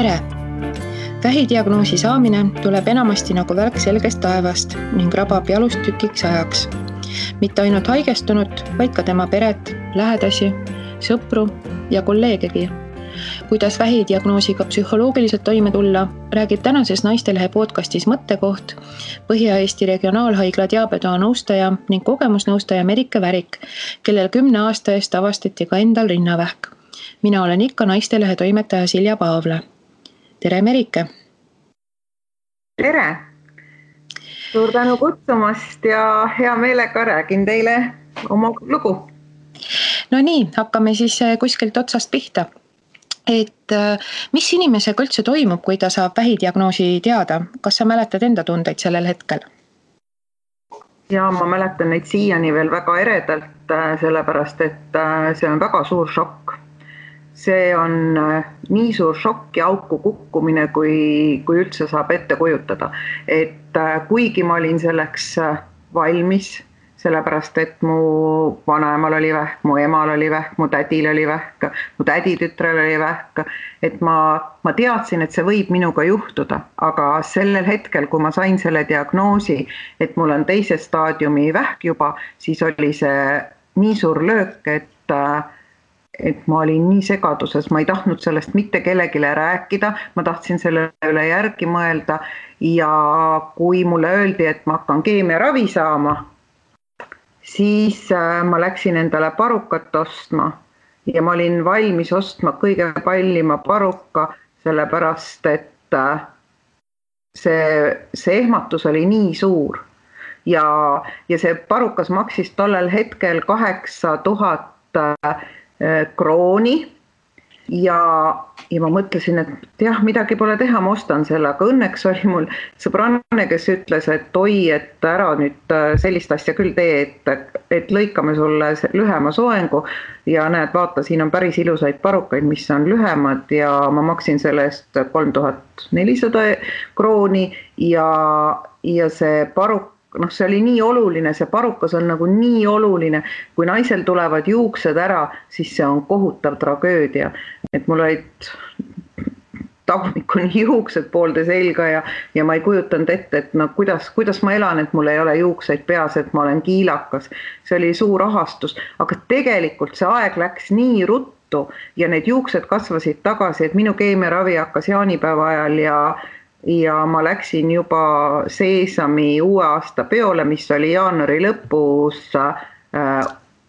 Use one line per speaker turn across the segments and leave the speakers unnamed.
Tere! Vähidiagnoosi saamine tuleb enamasti nagu välk selgest taevast ning rabab jalust tükiks ajaks. Mitte ainult haigestunut, vaid ka tema peret, lähedasi, sõpru ja kolleegegi. Kuidas vähidiagnoosiga psühholoogiliselt toime tulla, räägib tänases Naistelehe podcastis Mõttekoht Põhja-Eesti Regionaalhaigla diabetoa nõustaja ning kogemusnõustaja Merike Värik, kellel 10 aasta eest avastati ka endal rinnavähk. Mina olen ikka Naistelehe toimetaja Silja Paavle. Tere Merike!
Tere! Suur tänu kutsumast ja hea meelega räägin teile oma lugu.
No nii, hakkame siis kuskilt otsast pihta. Mis inimesega üldse toimub, kui ta saab vähidiagnoosi teada? Kas sa mäletad enda tundeid sellel hetkel?
Ja ma mäletan neid siiani veel väga eredalt, sellepärast, et see on väga suur šokk. See on nii suur šokk ja auku kukkumine, kui üldse saab ette kujutada. Et kuigi ma olin selleks valmis, sellepärast, et mu vanaemal oli vähk, mu emal oli vähk, mu tädil oli vähk, mu täditütrel oli vähk, et ma teadsin, et see võib minuga juhtuda, aga sellel hetkel, kui ma sain selle diagnoosi, et mul on teise staadiumi vähk juba, siis oli see nii suur löök, et ma olin nii segaduses, ma ei tahtnud sellest mitte kellegile rääkida, ma tahtsin selle üle järgi mõelda ja kui mulle öeldi, et ma hakkan keemiaravi saama, siis ma läksin endale parukat ostma ja ma olin valmis ostma kõige kallima paruka, sellepärast, et see ehmatus oli nii suur ja see parukas maksis tollel hetkel 8000 krooni ja ma mõtlesin, et jah, midagi pole teha, ma ostan selle, aga õnneks oli mul sõbranne, kes ütles, et oi, et ära nüüd sellist asja küll tee, et lõikame sulle lühema soengu ja näed, vaata, siin on päris ilusaid parukaid, mis on lühemad ja ma maksin selle eest 3400 krooni ja see paruk, see oli nii oluline, see parukas on nagu nii oluline, kui naisel tulevad juuksed ära, siis see on kohutav tragöödia, et mul olid tagumikuni juuksed poolde selga ja ma ei kujutanud ette, et kuidas ma elan, et mul ei ole juukseid peas, et ma olen kiilakas, see oli suur ahastus, aga tegelikult see aeg läks nii ruttu ja need juuksed kasvasid tagasi, et minu keemiaravi hakkas jaanipäeva ajal ja ma läksin juba Seesami uue aasta peole, mis oli jaanuari lõpus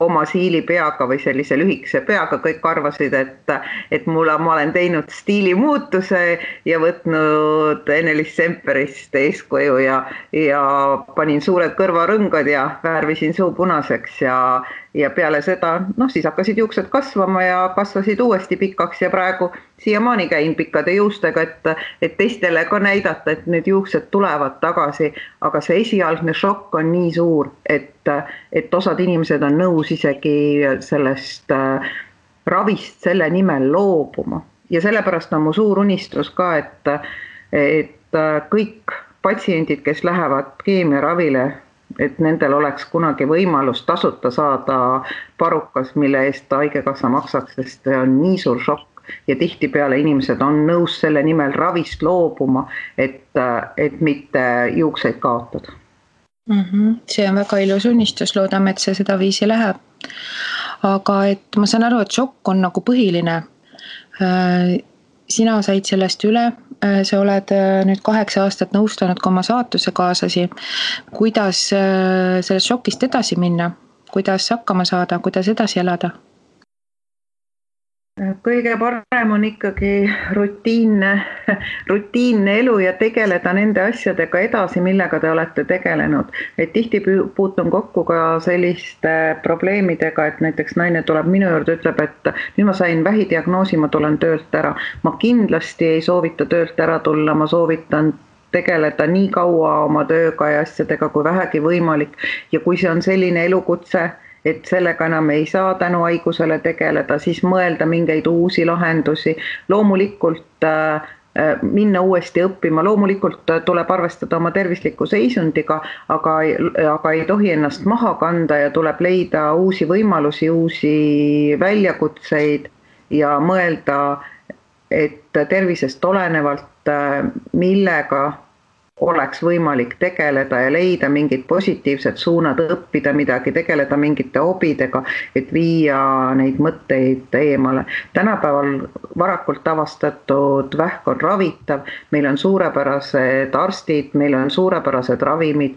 oma siilipeaga või sellise lühikese peaga. Kõik arvasid, et ma olen teinud stiilimuutuse ja võtnud Ene-Liis Semperist eeskuju ja panin suured kõrvarõngad ja värvisin suu punaseks ja peale seda, siis hakkasid juuksed kasvama ja kasvasid uuesti pikaks ja praegu siiamaani käin pikkade juustega, et teistele ka näidata, et need juuksed tulevad tagasi, aga see esialgne šokk on nii suur, et osad inimesed on nõus isegi sellest ravist selle nimel loobuma. Ja sellepärast on mu suur unistus ka, et kõik patsiendid, kes lähevad keemiaravile, et nendel oleks kunagi võimalus tasuta saada parukas, mille eest haigekassa maksaks, sest see on nii suur šokk ja tihtipeale inimesed on nõus selle nimel ravist loobuma, et mitte juukseid kaotada.
See on väga ilus unistus, loodame, et see seda viisi läheb. Aga et ma saan aru, et šokk on nagu põhiline. Sina said sellest üle, sa oled nüüd 8 aastat nõustanud ka oma saatuse kaasasi. Kuidas sellest šokist edasi minna? Kuidas hakkama saada? Kuidas edasi elada?
Kõige parem on ikkagi rutiinne elu ja tegeleda nende asjadega edasi, millega te olete tegelenud. Et tihti puutun kokku ka selliste probleemidega, et näiteks naine tuleb minu juurde, ütleb, et nüüd ma sain vähidiagnoosi, ma tulen töölt ära. Ma kindlasti ei soovita töölt ära tulla, ma soovitan tegeleda nii kaua oma tööga ja asjadega kui vähegi võimalik. Ja kui see on selline elukutse, et sellega enam ei saa tänu haigusele tegeleda, siis mõelda mingeid uusi lahendusi. Loomulikult minna uuesti õppima, loomulikult tuleb arvestada oma tervisliku seisundiga, aga ei tohi ennast maha kanda ja tuleb leida uusi võimalusi, uusi väljakutseid ja mõelda, et tervisest olenevalt, millega oleks võimalik tegeleda ja leida mingid positiivsed suunad, õppida midagi, tegeleda mingite hobidega, et viia neid mõtteid eemale. Tänapäeval varakult avastatud vähk on ravitav, meil on suurepärased arstid, meil on suurepärased ravimid.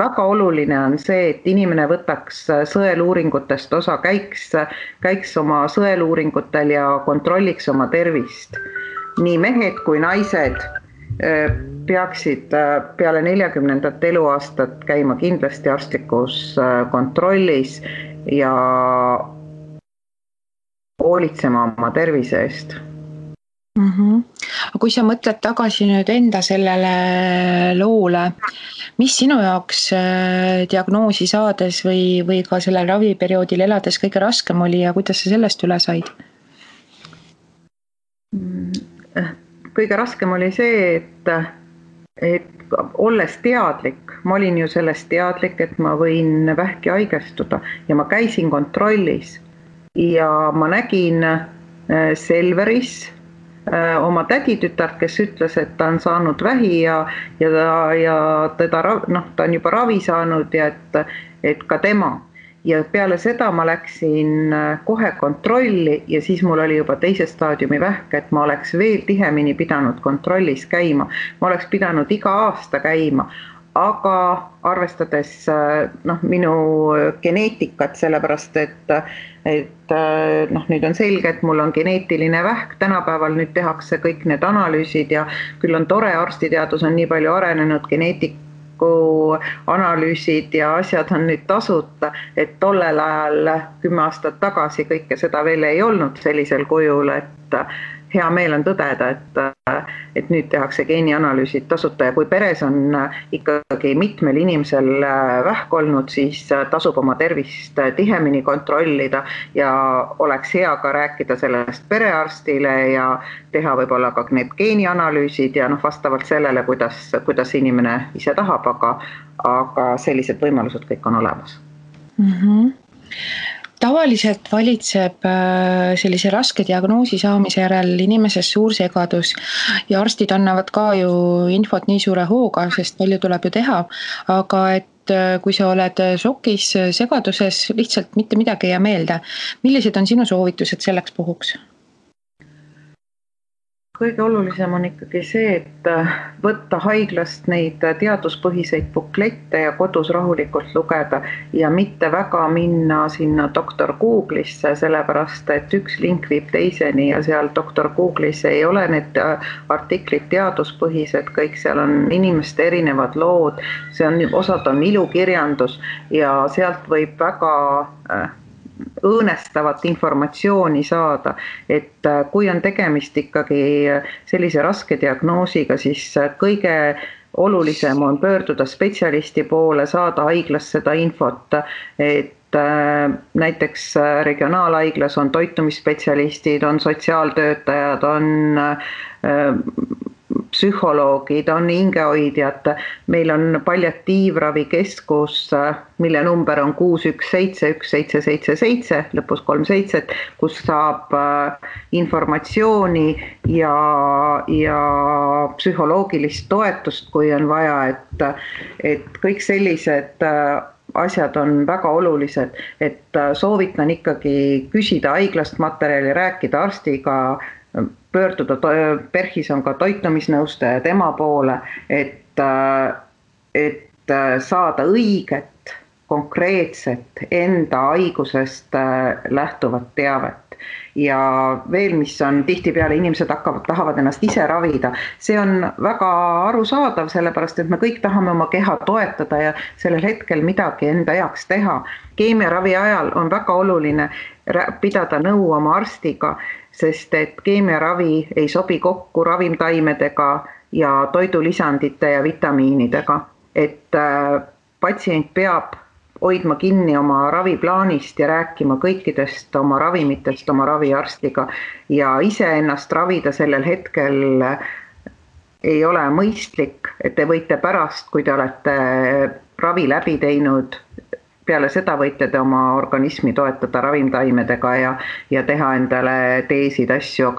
Väga oluline on see, et inimene võtaks sõeluuringutest osa, käiks oma sõeluuringutel ja kontrolliks oma tervist. Nii mehed kui naised peaksid peale 40. eluaastat käima kindlasti arstlikus kontrollis ja hoolitsema oma tervise eest.
Aga kui sa mõtled tagasi nüüd enda sellele loole, mis sinu jaoks diagnoosi saades või ka sellel raviperioodil elades kõige raskem oli ja kuidas sa sellest üle said?
Kõige raskem oli see, et olles teadlik, ma olin ju sellest teadlik, et ma võin vähki haigestuda ja ma käisin kontrollis ja ma nägin Selveris oma täditütart, kes ütles, et ta on saanud vähi ja ta on juba ravi saanud ja et ka tema. Ja peale seda ma läksin kohe kontrolli ja siis mul oli juba teise staadiumi vähk, et ma oleks veel tihemini pidanud kontrollis käima. Ma oleks pidanud iga aasta käima, aga arvestades minu geneetikat, sellepärast et nüüd on selge, et mul on geneetiline vähk, tänapäeval nüüd tehakse kõik need analüüsid ja küll on tore, arstiteadus on nii palju arenenud, analüüsid ja asjad on nüüd tasuta, et tollel ajal 10 aastat tagasi kõike seda veel ei olnud sellisel kujul, et hea meel on tõdeda, et nüüd tehakse geenianalüüsid tasuta ja kui peres on ikkagi mitmel inimesel vähk olnud, siis tasub oma tervist tihemini kontrollida ja oleks hea ka rääkida sellest perearstile ja teha võib-olla ka need geenianalüüsid ja vastavalt sellele, kuidas inimene ise tahab, aga sellised võimalused kõik on olemas.
Tavaliselt valitseb sellise raske diagnoosi saamise järel inimeses suur segadus ja arstid annavad ka ju infot nii suure hooga, sest palju tuleb ju teha, aga et kui sa oled šokis, segaduses, lihtsalt mitte midagi ei jää meelde. Millised on sinu soovitused selleks puhuks?
Kõige olulisem on ikkagi see, et võtta haiglast neid teaduspõhiseid buklette ja kodus rahulikult lugeda ja mitte väga minna sinna doktor Google'isse, sellepärast et üks link viib teiseni ja seal doktor Google'is ei ole need artiklid teaduspõhised, kõik seal on inimeste erinevad lood, osad on ilukirjandus ja sealt võib väga õõnestavat informatsiooni saada, et kui on tegemist ikkagi sellise raske diagnoosiga, siis kõige olulisem on pöörduda spetsialisti poole, saada haiglas seda infot, et näiteks regionaalhaiglas on toitumisspetsialistid, on sotsiaaltöötajad, on psühholoogid, on hingehoidjad, meil on palliatiivravikeskus, mille number on 6171777, lõpus 37, kus saab informatsiooni ja psühholoogilist toetust, kui on vaja, et kõik sellised asjad on väga olulised, et soovitan ikkagi küsida haiglast materjali, rääkida arstiga, pöörduda, PERH-is on ka toitumisnõustaja tema poole, et saada õiget, konkreetset enda haigusest lähtuvat teavet. Ja veel, mis on tihtipeale inimesed tahavad ennast ise ravida, see on väga arusaadav, sellepärast et me kõik tahame oma keha toetada ja sellel hetkel midagi enda heaks teha. Keemiaravi ajal on väga oluline pidada nõu oma arstiga, sest et keemiaravi ei sobi kokku ravimtaimedega ja toidulisandite ja vitamiinidega, et patsient peab hoidma kinni oma raviplaanist ja rääkima kõikidest oma ravimitest oma raviarstiga ja ise ennast ravida sellel hetkel ei ole mõistlik, et te võite pärast, kui te olete ravi läbi teinud, peale seda võite te oma organismi toetada ravimtaimedega ja teha endale teesid asju,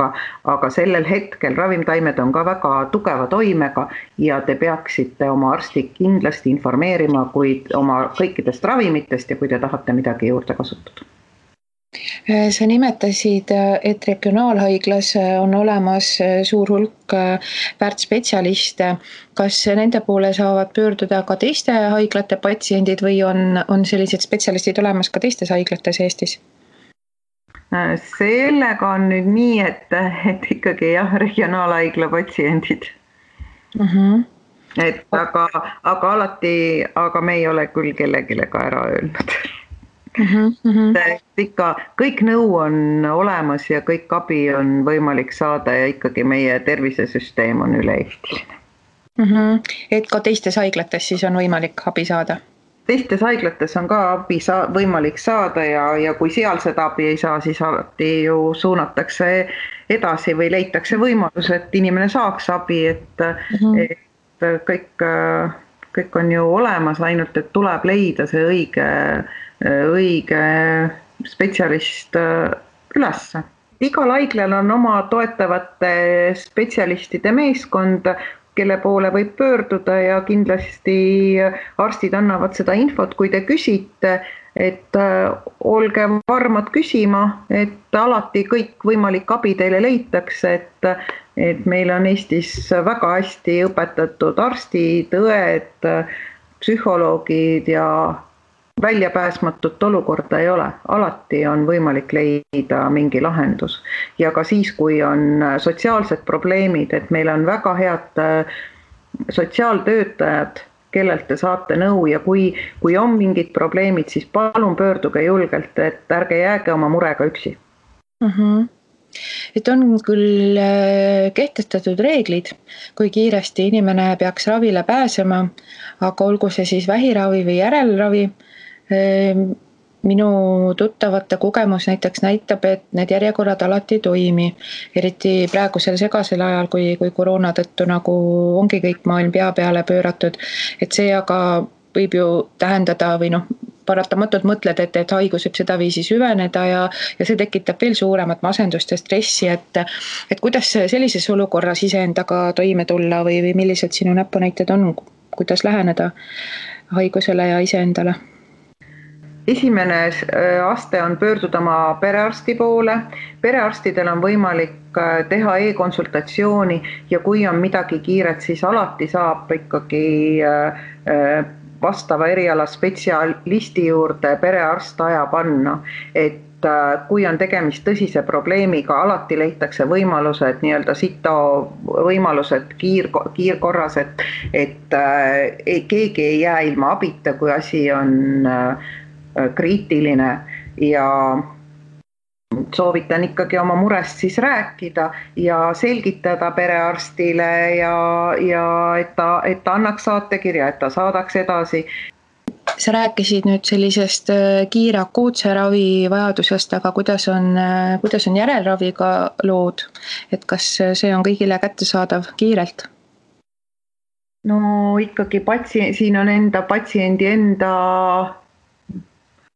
aga sellel hetkel ravimtaimed on ka väga tugeva toimega ja te peaksite oma arsti kindlasti informeerima oma kõikidest ravimitest ja kui te tahate midagi juurde kasutada.
Sa nimetasid, et regionaalhaiglas on olemas suur hulk väärtspetsialiste. Kas nende poole saavad pöörduda ka teiste haiglate patsiendid või on sellised spetsialistid olemas ka teistes haiglates Eestis?
Sellega on nüüd nii, et ikkagi regionaalhaigla patsiendid. Et aga me ei ole küll kellegile ka ära öelnud. Ikka kõik nõu on olemas ja kõik abi on võimalik saada ja ikkagi meie tervisesüsteem on üle-eestiline.
Et ka teistes haiglates siis on võimalik abi saada?
Teistes haiglates on ka abi võimalik saada ja kui seal seda abi ei saa, siis alati ju suunatakse edasi või leitakse võimalus, et inimene saaks abi, et kõik on ju olemas, ainult et tuleb leida see õige spetsialist üles. Igal haiglal on oma toetavate spetsialistide meeskond, kelle poole võib pöörduda ja kindlasti arstid annavad seda infot, kui te küsite, et olge varmad küsima, et alati kõik võimalik abi teile leitakse, et meil on Eestis väga hästi õpetatud arstid, õed, psühholoogid ja väljapääsmatut olukorda ei ole. Alati on võimalik leida mingi lahendus. Ja ka siis, kui on sotsiaalsed probleemid, et meil on väga head sotsiaaltöötajad, kellelt te saate nõu ja kui on mingid probleemid, siis palun pöörduge julgelt, et ärge jääge oma murega üksi.
Et on küll kehtestatud reeglid, kui kiiresti inimene peaks ravile pääsema, aga olgu see siis vähiravi või järelravi. Minu tuttavate kogemus näiteks näitab, et need järjekorrad alati ei toimi, eriti praegusel segasel ajal, kui koroona tõttu nagu ongi kõik maailm pea peale pööratud, et see aga võib ju tähendada või paratamatult mõtled, et haigus võib sedaviisi süveneda ja see tekitab veel suuremat masendust ja stressi, et kuidas sellises olukorras iseendaga toime tulla või millised sinu näpunäited on, kuidas läheneda haigusele ja iseendale?
Esimene aste on pöörduda oma perearsti poole. Perearstidel on võimalik teha e-konsultatsiooni ja kui on midagi kiiret, siis alati saab ikkagi vastava eriala spetsialisti juurde perearst aja panna, et kui on tegemist tõsise probleemiga, alati leitakse võimalused, nii-öelda sito võimalused kiirkorras, et keegi ei jää ilma abita, kui asi on kriitiline ja soovitan ikkagi oma murest siis rääkida ja selgitada perearstile ja et ta annaks saatekirja, et ta saadaks edasi.
Sa rääkisid nüüd sellisest kiire akuutse ravi vajadusest, aga kuidas on järelraviga lood, et kas see on kõigile kättesaadav kiirelt?
No ikkagi siin on patsiendi enda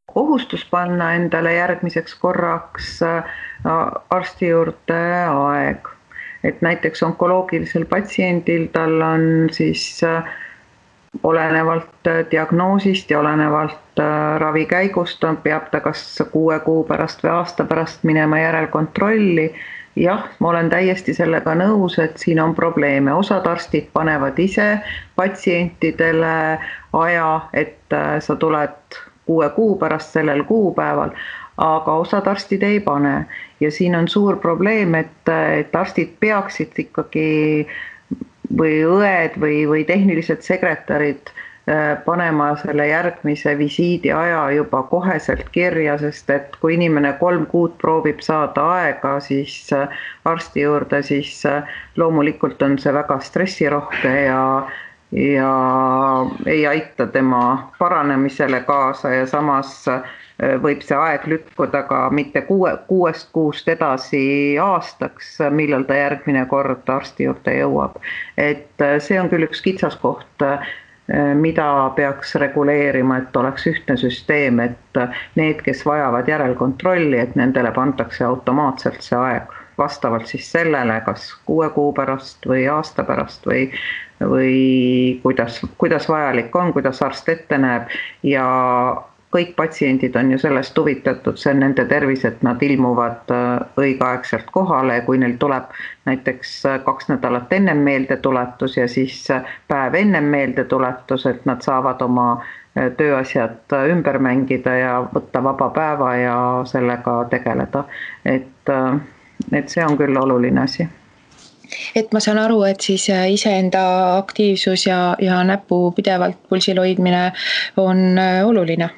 kohustus panna endale järgmiseks korraks arsti juurde aeg. Et näiteks onkoloogilisel patsiendil tal on siis olenevalt diagnoosist ja olenevalt ravi käigust peab ta kas 6 kuu pärast või aasta pärast minema järelkontrolli. Jah, ma olen täiesti sellega nõus, et siin on probleeme. Osad arstid panevad ise patsientidele aja, et sa tuled 6 kuu pärast sellel kuupäeval, aga osad arstid ei pane. Ja siin on suur probleem, et arstid peaksid ikkagi või õed või tehnilised sekretärid panema selle järgmise visiidi aja juba koheselt kirja, sest et kui inimene 3 kuud proovib saada aega, siis arsti juurde, siis loomulikult on see väga stressirohke ja ei aita tema paranemisele kaasa ja samas võib see aeg lükkuda ka mitte 6 kuust edasi aastaks, millal ta järgmine kord arsti juurde jõuab. Et see on küll üks kitsaskoht mida peaks reguleerima, et oleks ühtne süsteem, et need, kes vajavad järelkontrolli, et nendele pandakse automaatselt see aeg vastavalt siis sellele, kas 6 kuu pärast või aasta pärast või kuidas vajalik on, kuidas arst ette näeb ja kõik patsiendid on ju sellest huvitatud, see on nende tervis, et nad ilmuvad õigeaegselt kohale, kui neil tuleb näiteks 2 nädalat ennem meeldetuletus ja siis päev ennem meeldetuletus, et nad saavad oma tööasjad ümber mängida ja võtta vaba päeva ja sellega tegeleda. Et see on küll oluline asi.
Et ma saan aru, et siis iseenda aktiivsus ja näpu pidevalt pulsil hoidmine on oluline.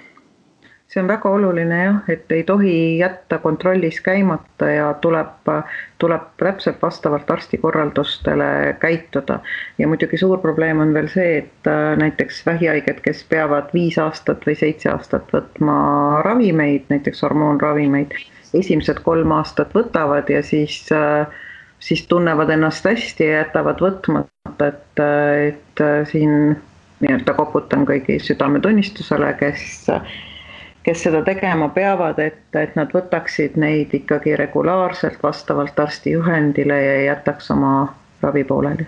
See on väga oluline jah, et ei tohi jätta kontrollis käimata ja tuleb täpselt vastavalt arstikorraldustele käituda. Ja muidugi suur probleem on veel see, et näiteks vähihaiged, kes peavad 5 aastat või 7 aastat võtma ravimeid, näiteks hormoonravimeid, esimesed 3 aastat võtavad ja siis tunnevad ennast hästi ja jätavad võtmata, et siin nii-öelda koputan kõigi südametunnistusele, kes seda tegema peavad, et nad võtaksid neid ikkagi regulaarselt vastavalt arsti juhendile ja jätaks oma ravi pooleli.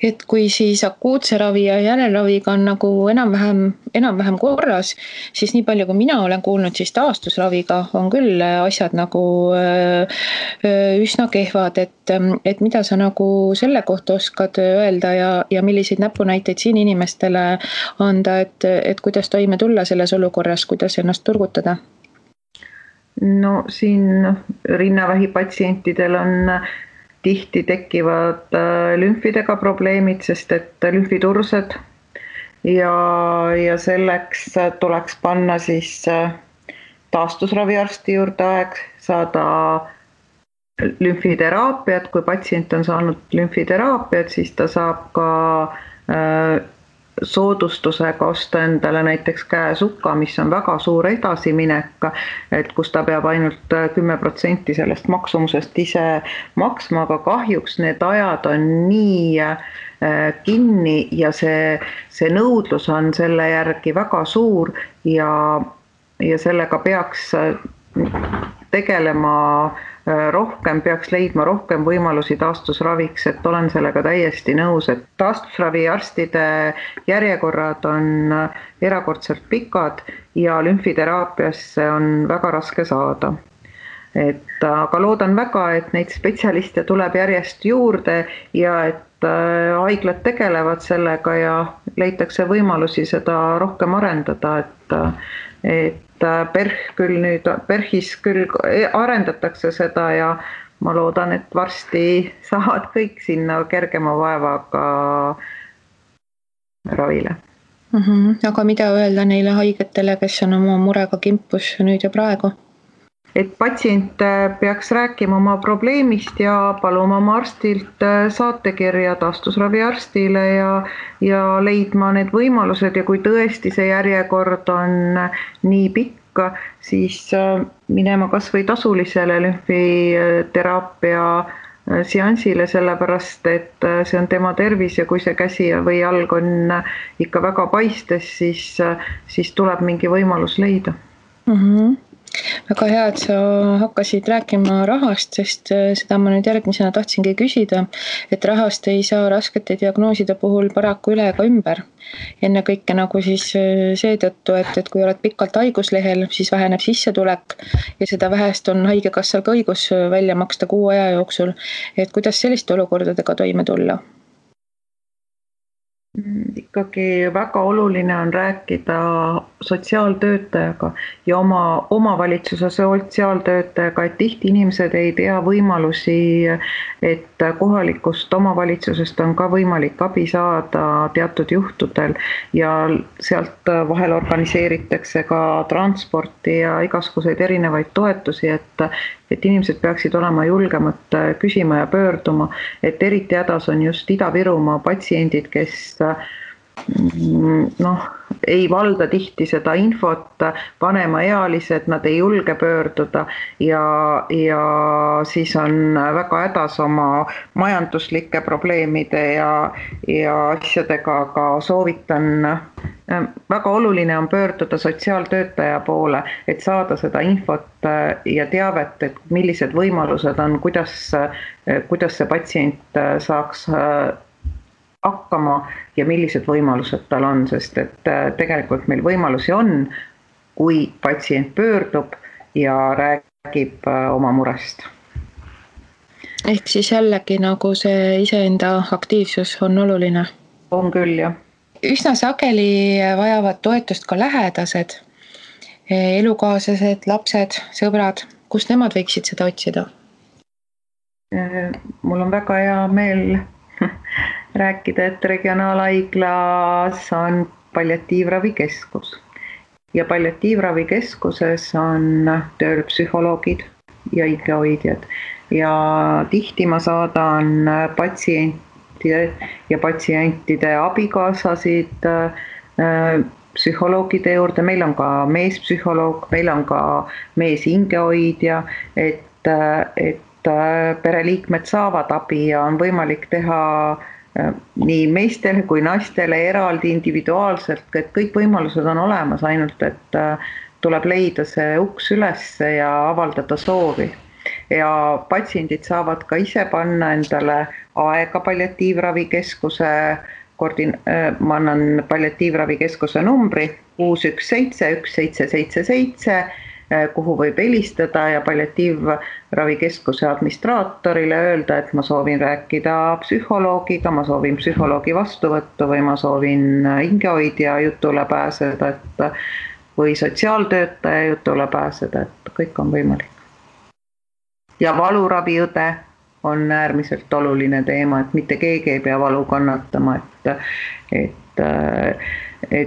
Et kui siis akuutse ravi ja järelraviga on nagu enam-vähem korras, siis nii palju kui mina olen kuulnud, siis taastusraviga on küll asjad nagu üsna kehvad, et mida sa nagu selle kohta oskad öelda ja milliseid näpunäiteid siin inimestele anda, et kuidas toime tulla selles olukorras, kuidas ennast turgutada?
No siin rinnavähi patsientidel on tihti tekivad lümfidega probleemid, sest et lümfitursed ja selleks tuleks panna siis taastusraviarsti juurde aeg, saada lümfiteraapiat, kui patsient on saanud lümfiteraapiat, siis ta saab ka soodustusega osta endale näiteks käesukka, mis on väga suur edasiminek, et kus ta peab ainult 10% sellest maksumusest ise maksma, aga kahjuks need ajad on nii kinni ja see nõudlus on selle järgi väga suur ja sellega peaks tegelema rohkem, peaks leidma rohkem võimalusi taastusraviks, et olen sellega täiesti nõus, et taastusraviarstide järjekorrad on erakordselt pikad ja lümfiteraapiasse on väga raske saada. Aga loodan väga, et neid spetsialiste tuleb järjest juurde ja et haiglad tegelevad sellega ja leitakse võimalusi seda rohkem arendada, et PERH-is küll arendatakse seda ja ma loodan, et varsti saavad kõik sinna kergema vaevaga ravile.
Aga mida öelda neile haigetele, kes on oma murega kimpus nüüd ja praegu?
Et patsient peaks rääkima oma probleemist ja paluma oma arstilt saatekirja taastusraviarstile ja leidma need võimalused ja kui tõesti see järjekord on nii pikk, siis minema kas või tasulisele lümfiteraapia seansile, sellepärast et see on tema tervis ja kui see käsi või jalg on ikka väga paistes, siis tuleb mingi võimalus leida.
Väga hea, et sa hakkasid rääkima rahast, sest seda ma nüüd järgmisena tahtsingi küsida, et rahast ei saa raskete diagnooside puhul paraku üle ega ümber. Enne kõike nagu siis seetõttu, et kui oled pikalt haiguslehel, siis väheneb sissetulek ja seda vähest on haigekassal ka õigus välja maksta 6 aja jooksul. Et kuidas selliste olukordadega toime tulla?
Ikkagi väga oluline on rääkida sotsiaaltöötajaga ja oma omavalitsuse sotsiaaltöötajaga, et tihti inimesed ei tea võimalusi, et kohalikust omavalitsusest on ka võimalik abi saada teatud juhtudel ja sealt vahel organiseeritakse ka transporti ja igasuguseid erinevaid toetusi, et inimesed peaksid olema julgemad küsima ja pöörduma, et eriti hädas on just Ida-Virumaa patsiendid, kes ei valda tihti seda infot, vanemaealised, nad ei julge pöörduda ja siis on väga hädas oma majanduslike probleemide ja asjadega, aga soovitan, väga oluline on pöörduda sotsiaaltöötaja poole, et saada seda infot ja teavet, et millised võimalused on, kuidas see patsient saaks hakkama ja millised võimalused tal on, sest et tegelikult meil võimalusi on, kui patsient pöördub ja räägib oma murest.
Ehk siis jällegi nagu see iseenda aktiivsus on oluline.
On küll, jah.
Üsna sageli vajavad toetust ka lähedased, elukaaslased, lapsed, sõbrad. Kust nemad võiksid seda otsida?
Mul on väga hea meel rääkida, et regionaalhaiglas on palliatiivravikeskus ja palliatiivravikeskuses on tööl psühholoogid ja hingehoidjad ja tihti ma saadan patsientide ja patsientide abikaasasid psühholoogide juurde, meil on ka meespsühholoog, meil on ka meeshingehoidja, et pereliikmed saavad abi ja on võimalik teha nii meestele kui naistele eraldi individuaalselt, et kõik võimalused on olemas, ainult et tuleb leida see uks üles ja avaldada soovi. Ja patsiendid saavad ka ise panna endale aega palliatiivravikeskuse, ma annan palliatiivravikeskuse numbri 617 1777, kuhu võib helistada ja palliatiivravikeskuse administraatorile öelda, et ma soovin rääkida psühholoogiga, ma soovin psühholoogi vastuvõttu või ma soovin hingehoidja jutule pääseda või sotsiaaltöötaja jutule pääseda, et kõik on võimalik. Ja valuraviõde on äärmiselt oluline teema, et mitte keegi ei pea valu kannatama, et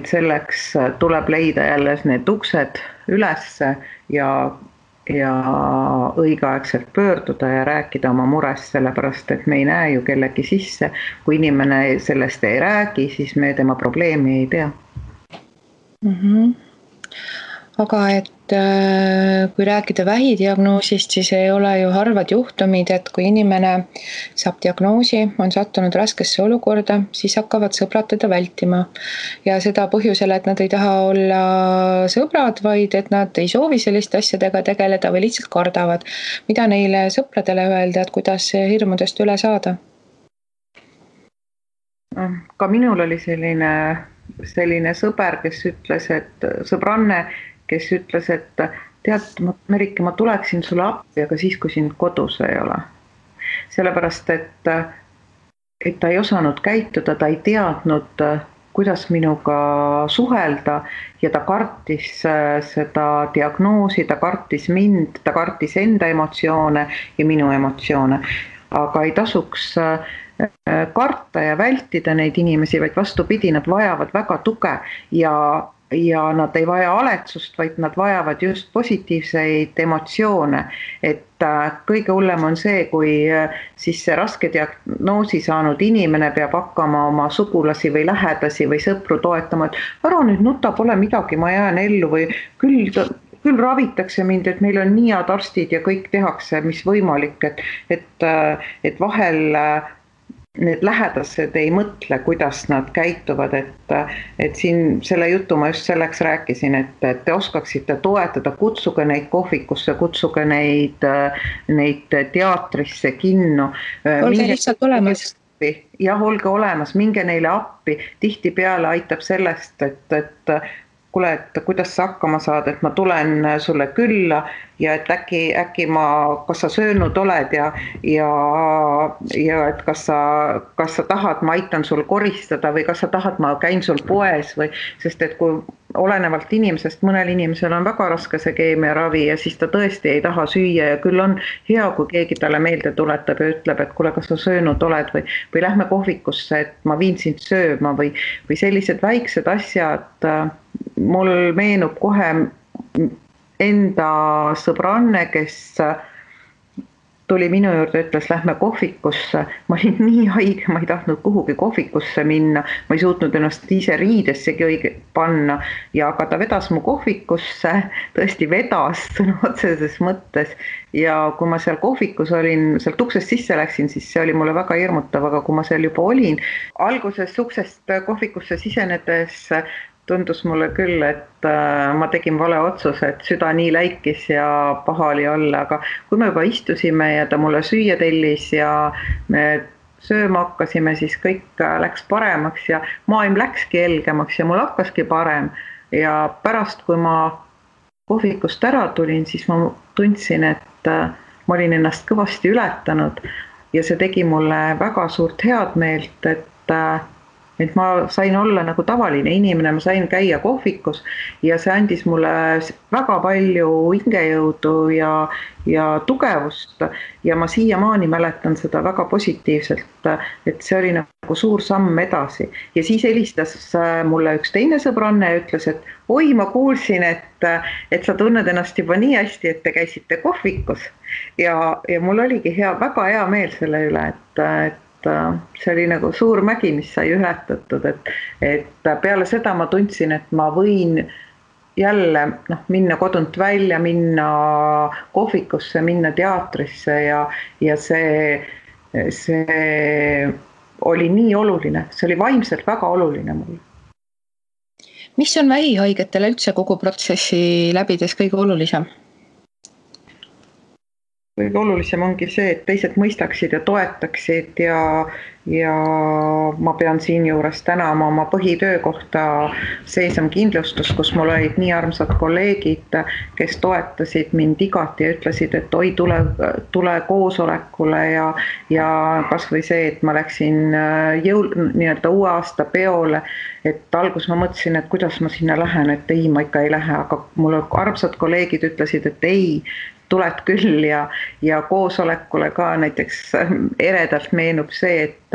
selleks tuleb leida jälle need uksed ülesse ja õigeaegselt pöörduda ja rääkida oma murest, sellepärast et me ei näe ju kellegi sisse. Kui inimene sellest ei räägi, siis me tema probleemi ei tea.
Aga et kui rääkida vähidiagnoosist, siis ei ole ju harvad juhtumid, et kui inimene saab diagnoosi, on sattunud raskesse olukorda, siis hakkavad sõbrad teda vältima. Ja seda põhjusel, et nad ei taha olla sõbrad, vaid et nad ei soovi selliste asjadega tegeleda või lihtsalt kardavad. Mida neile sõpradele öelda, et kuidas hirmudest üle saada?
Ka minul oli selline sõber, kes ütles, et sõbranne, kes ütles, et tead, Merike, ma tuleksin sulle appi, aga siis, kui sind kodus ei ole. Sellepärast, et ta ei osanud käituda, ta ei teadnud, kuidas minuga suhelda ja ta kartis seda diagnoosi, ta kartis mind, ta kartis enda emotsioone ja minu emotsioone. Aga ei tasuks karta ja vältida neid inimesi, vaid vastupidi, nad vajavad väga tuge ja nad ei vaja aletsust, vaid nad vajavad just positiivseid emotsioone. Et kõige hullem on see, kui siis see raske diagnoosi saanud inimene peab hakkama oma sugulasi või lähedasi või sõpru toetama, et ära nüüd nuta, pole midagi, ma jään ellu või küll ravitakse mind, et meil on nii head arstid ja kõik tehakse, mis võimalik, et vahel need lähedased ei mõtle, kuidas nad käituvad, et siin selle jutu ma just selleks rääkisin, et te oskaksite toetada, kutsuge neid kohvikusse, kutsuge neid teatrisse, kinno.
Olge lihtsalt olemas.
Jah, olge olemas, minge neile appi, tihtipeale aitab sellest, et kuule, et kuidas sa hakkama saad, et ma tulen sulle külla ja et äkki kas sa söönud oled ja et kas sa tahad, ma aitan sul koristada või kas sa tahad, ma käin sul poes või, sest et kui olenevalt inimesest, mõnel inimesel on väga raske see keemiaravi ja siis ta tõesti ei taha süüa ja küll on hea, kui keegi talle meelde tuletab ja ütleb, et kuule, kas sa söönud oled või lähme kohvikusse, et ma viin sind sööma või sellised väiksed asjad. Mul meenub kohe enda sõbranne, kes tuli minu juurde, ütles, lähme kohvikusse. Ma olin nii haige, ma ei tahtnud kuhugi kohvikusse minna. Ma ei suutnud ennast ise riidessegi õige panna. Aga ta vedas mu kohvikusse, tõesti vedas sõna otseses mõttes. Ja kui ma seal kohvikus olin, sealt uksest sisse läksin, siis see oli mulle väga hirmutav. Aga kui ma seal juba olin, alguses uksest kohvikusse sisenedes tundus mulle küll, et ma tegin vale otsuse, et süda nii läikis ja paha oli olla, aga kui me juba istusime ja ta mulle süüa tellis ja me sööma hakkasime, siis kõik läks paremaks ja maailm läkski helgemaks ja mul hakkaski parem. Ja pärast, kui ma kohvikust ära tulin, siis ma tundsin, et ma olin ennast kõvasti ületanud ja see tegi mulle väga suurt head meelt, et ma sain olla nagu tavaline inimene, ma sain käia kohvikus ja see andis mulle väga palju hingejõudu ja tugevust ja ma siiamaani mäletan seda väga positiivselt, et see oli nagu suur samm edasi. Ja siis helistas mulle üks teine sõbranne ja ütles, et oi, ma kuulsin, et sa tunned ennast juba nii hästi, et te käisite kohvikus ja mul oligi väga hea meel selle üle, et see oli nagu suur mägi, mis sai ületatud, et peale seda ma tundsin, et ma võin jälle minna kodunt välja, minna kohvikusse, minna teatrisse ja see oli nii oluline, see oli vaimselt väga oluline mulle.
Mis on vähihaigetele üldse kogu protsessi läbides kõige olulisem?
Kõige olulisem ongi see, et teised mõistaksid ja toetaksid ja ma pean siin juures tänama oma põhitöökohta Seisam kindlustus, kus mul olid nii armsad kolleegid, kes toetasid mind igati ja ütlesid, et oi, tule koosolekule ja kas või see, et ma läksin nii-öelda uue aasta peole, et algus ma mõtlesin, et kuidas ma sinna lähen, et ei, ma ikka ei lähe, aga mul armsad kolleegid ütlesid, et ei, tuled küll ja koosolekule ka näiteks eredalt meenub see, et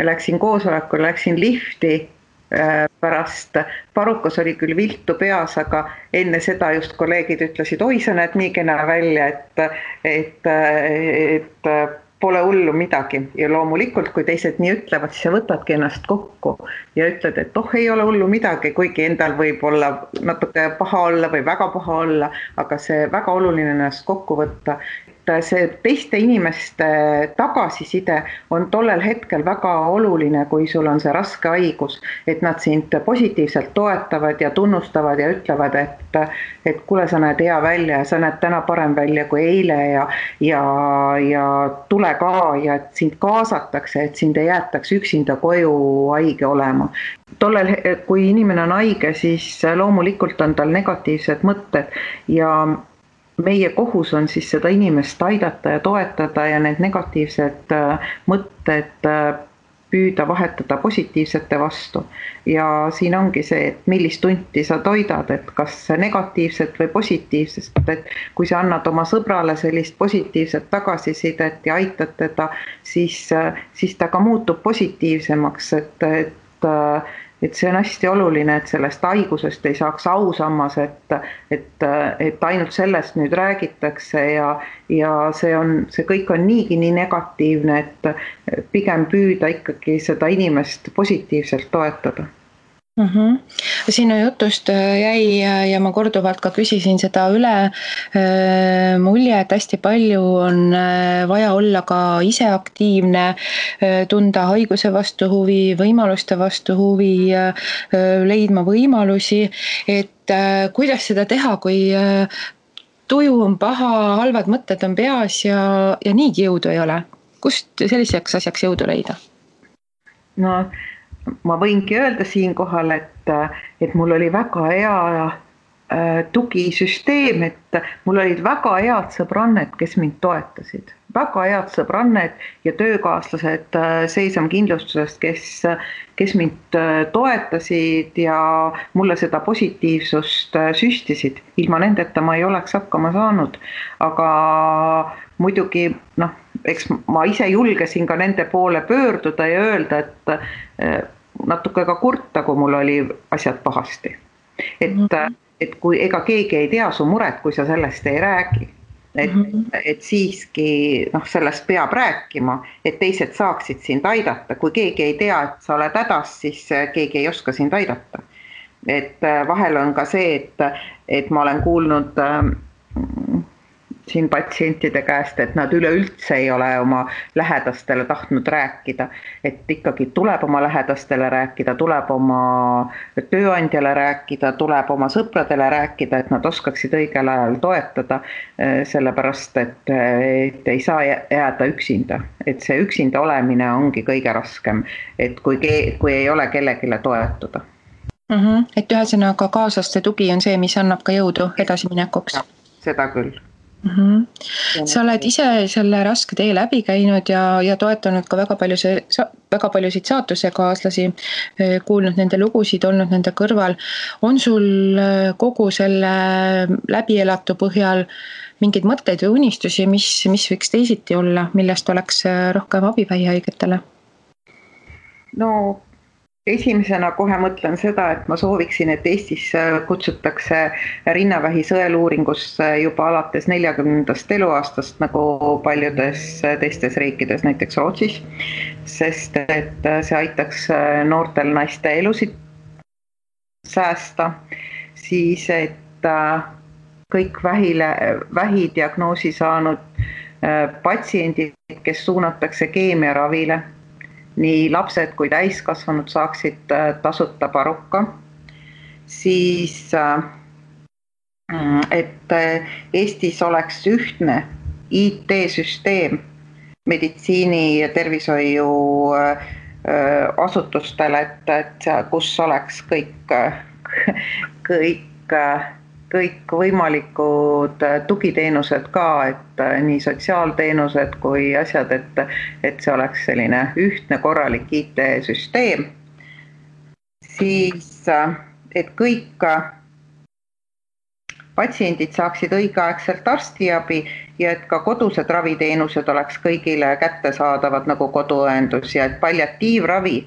läksin koosolekule, läksin lifti pärast, parukas oli küll viltu peas, aga enne seda just kolleegid ütlesid, oi, sa näed nii kena välja, et pole hullu midagi ja loomulikult, kui teised nii ütlevad, siis sa võtadki ennast kokku ja ütled, et ei ole hullu midagi, kuigi endal võib olla natuke paha olla või väga paha olla, aga see väga oluline ennast kokku võtta. See teiste inimeste tagasiside on tollel hetkel väga oluline, kui sul on see raske haigus, et nad sind positiivselt toetavad ja tunnustavad ja ütlevad, et kuule, sa näed hea välja ja sa näed täna parem välja kui eile ja tule ka ja et sind kaasatakse, et sind ei jäetaks üksinda koju haige olema. Tollel, kui inimene on haige, siis loomulikult on tal negatiivsed mõtted ja meie kohus on siis seda inimest aidata ja toetada ja need negatiivsed mõtted püüda vahetada positiivsete vastu. Ja siin ongi see, et millist tunti sa toidad, et kas negatiivset või positiivsest, et kui sa annad oma sõbrale sellist positiivset tagasisidet ja aitad teda, siis ta ka muutub positiivsemaks, et see on hästi oluline, et sellest haigusest ei saaks ausammas, et ainult sellest nüüd räägitakse ja see kõik on niigi nii negatiivne, et pigem püüda ikkagi seda inimest positiivselt toetada.
Sinu jutust jäi ja ma korduvalt ka küsisin seda üle mulje, et hästi palju on vaja olla ka ise aktiivne, tunda haiguse vastu huvi, võimaluste vastu huvi, leidma võimalusi, et kuidas seda teha, kui tuju on paha, halvad mõtted on peas ja niigi jõudu ei ole. Kust selliseks asjaks jõudu leida?
No, ma võingi öelda siinkohal, et mul oli väga hea tugisüsteem, et mul olid väga head sõbranned, kes mind toetasid. Väga head sõbranned ja töökaaslased Seisam kindlustusest, kes mind toetasid ja mulle seda positiivsust süstisid. Ilma nendeta ma ei oleks hakkama saanud, aga muidugi, eks ma ise julgesin ka nende poole pöörduda ja öelda, et natuke ka kurta, kui mul oli asjad pahasti. Et kui ega keegi ei tea su muret, kui sa sellest ei räägi. et siiski sellest peab rääkima, et teised saaksid sind aidata. Kui keegi ei tea, et sa oled hädas, siis keegi ei oska sind aidata. Et vahel on ka see, et ma olen kuulnud siin patsientide käest, et nad üleüldse ei ole oma lähedastele tahtnud rääkida, et ikkagi tuleb oma lähedastele rääkida, tuleb oma tööandjale rääkida, tuleb oma sõpradele rääkida, et nad oskaksid õigel ajal toetada, sellepärast, et ei saa jääda üksinda. Et see üksinda olemine ongi kõige raskem, et kui ei ole kellegile toetuda.
Et ühesõnaga kaaslaste tugi on see, mis annab ka jõudu edasiminekuks.
Seda küll.
Sa oled ise selle raske tee läbi käinud ja toetanud ka väga paljusid saatusekaaslasi, kuulnud nende lugusid, olnud nende kõrval. On sul kogu selle läbielatu põhjal mingeid mõtteid või unistusi, mis võiks teisiti olla, millest oleks rohkem abi vähihaigetele?
No esimesena kohe mõtlen seda, et ma sooviksin, et Eestis kutsutakse rinnavähi sõeluuringusse juba alates 40. eluaastast, nagu paljudes teistes riikides, näiteks Rootsis, sest et see aitaks noortel naiste elusid säästa, siis et kõik vähidiagnoosi saanud patsiendid, kes suunatakse keemiaravile, nii lapsed kui täiskasvanud saaksid tasuta paruka, siis et Eestis oleks ühtne IT-süsteem meditsiini ja tervishoiu asutustele, et kus oleks kõik võimalikud tugiteenused ka, et nii sotsiaalteenused kui asjad, et see oleks selline ühtne korralik IT-süsteem. Siis, et kõik patsiendid saaksid õigeaegselt arstiabi ja et ka kodused raviteenused oleks kõigile kättesaadavad nagu koduõendus ja et palliatiivravi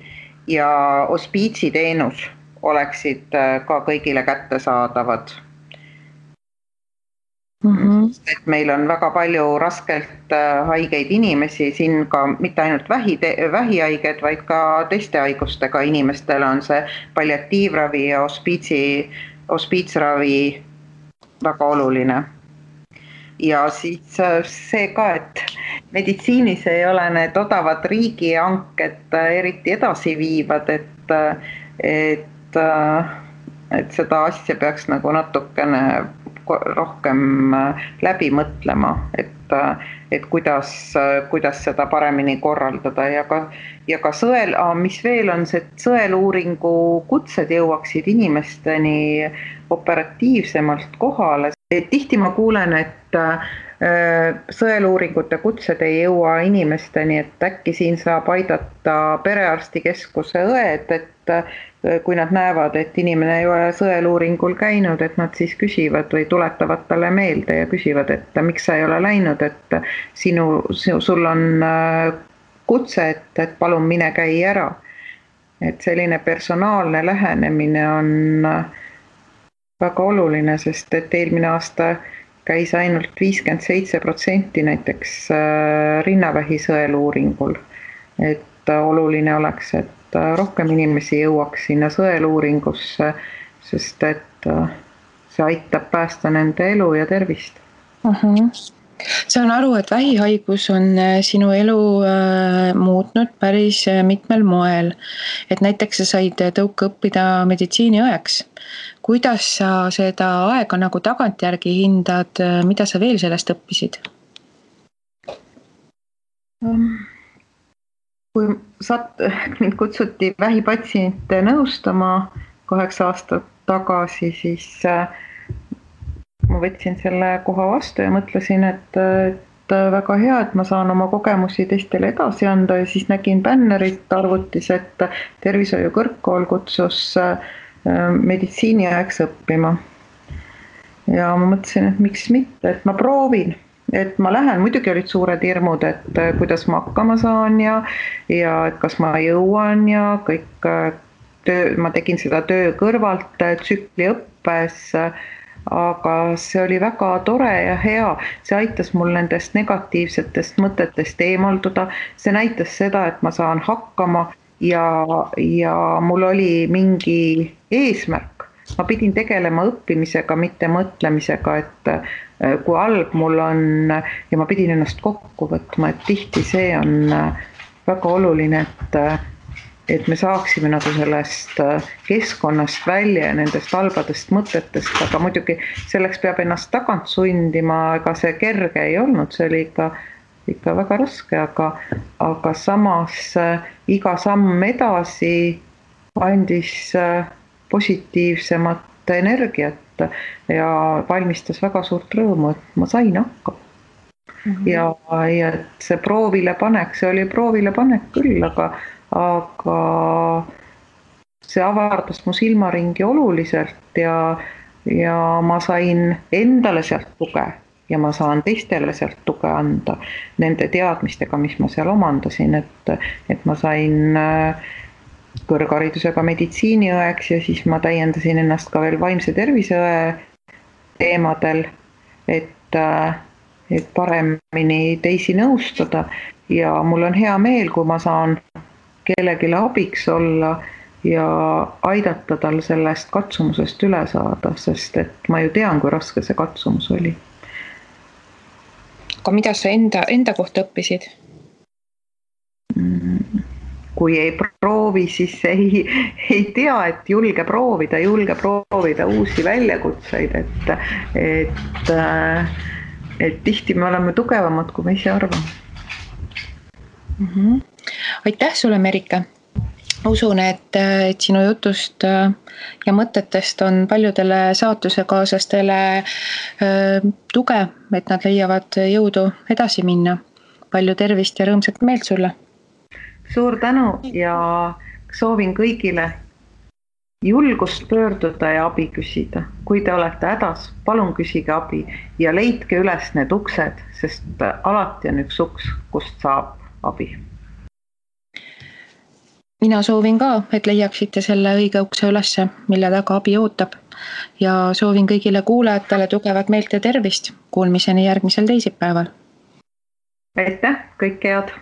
ja hospiitsiteenus oleksid ka kõigile kättesaadavad. Et meil on väga palju raskelt haigeid inimesi, siin ka mitte ainult vähihaiged, vaid ka teiste haigustega inimestel on see palliatiivravi ja hospiitsravi väga oluline. Ja siis see ka, et meditsiinis ei ole need odavad riigihanked eriti edasi viivad, et seda asja peaks nagu natukene rohkem läbi mõtlema, et kuidas seda paremini korraldada ja ka mis veel on see, et sõeluuringu kutsed jõuaksid inimesteni operatiivsemalt kohale. Et tihti ma kuulen, et sõeluuringute kutsed ei jõua inimesteni, et äkki siin saab aidata perearstikeskuse õed, et kui nad näevad, et inimene ei ole sõeluuringul käinud, et nad siis küsivad või tuletavad talle meelde ja küsivad, et miks sa ei ole läinud, et sul on kutse, et palun mine käi ära. Et selline personaalne lähenemine on väga oluline, sest et eelmine aasta käis ainult 57% näiteks rinnavähi sõeluuringul. Et oluline oleks, et rohkem inimesi jõuaks sinna sõeluuringusse, sest et see aitab päästa nende elu ja tervist.
Saan aru, et vähihaigus on sinu elu muutnud päris mitmel moel. Et näiteks sa said tõuke õppida meditsiiniõeks. Kuidas sa seda aega nagu tagantjärgi hindad, mida sa veel sellest õppisid?
Kui mind kutsuti vähipatsiente nõustama 8 aastat tagasi, siis ma võtsin selle koha vastu ja mõtlesin, et väga hea, et ma saan oma kogemusi teistele edasi anda ja siis nägin bännerit arvutis, et tervishoiu kõrgkool kutsus meditsiiniõeks õppima. Ja ma mõtlesin, et miks mitte, et ma proovin. Et ma lähen, muidugi olid suured hirmud, et kuidas ma hakkama saan ja et kas ma jõuan ja kõik ma tegin seda töö kõrvalt tsükli õppes, aga see oli väga tore ja hea, see aitas mul nendest negatiivsetest mõtetest eemalduda, see näitas seda, et ma saan hakkama ja mul oli mingi eesmärk, ma pidin tegelema õppimisega, mitte mõtlemisega, et kui halb mul on ja ma pidin ennast kokku võtma, et tihti see on väga oluline, et me saaksime nagu sellest keskkonnast välja ja nendest halbadest mõtetest, aga muidugi selleks peab ennast tagant sundima, ega see kerge ei olnud, see oli ikka väga raske, aga samas iga samm edasi andis positiivsemat energiat ja valmistas väga suurt rõõmu, et ma sain hakkama. Ja see proovilepanek, see oli proovilepanek küll, aga see avardas mu silmaringi oluliselt ja ma sain endale sealt tuge ja ma saan teistele sealt tuge anda nende teadmistega, mis ma seal omandasin, et ma sain kõrgharidusega meditsiiniõeks ja siis ma täiendasin ennast ka veel vaimse terviseõe teemadel, et paremini teisi nõustada ja mul on hea meel, kui ma saan kellelegi abiks olla ja aidata tal sellest katsumusest üle saada, sest et ma ju tean, kui raske see katsumus oli.
Aga mida sa enda kohta õppisid?
Kui ei proovi, siis ei tea, et julge proovida uusi väljakutseid, et tihti me oleme tugevamad, kui me ise arvame.
Aitäh sulle, Merike! Usun, et sinu jutust ja mõtetest on paljudele saatusekaaslastele tuge, et nad leiavad jõudu edasi minna. Palju tervist ja rõõmsat meelt sulle!
Suur tänu ja soovin kõigile julgust pöörduda ja abi küsida. Kui te olete hädas, palun küsige abi ja leidke üles need uksed, sest alati on üks uks, kust saab abi.
Mina soovin ka, et leiaksite selle õige ukse ülesse, mille taga abi ootab. Ja soovin kõigile kuulajatele tugevat meelt ja tervist. Kuulmiseni järgmisel teisipäeval.
Aitäh, kõike head!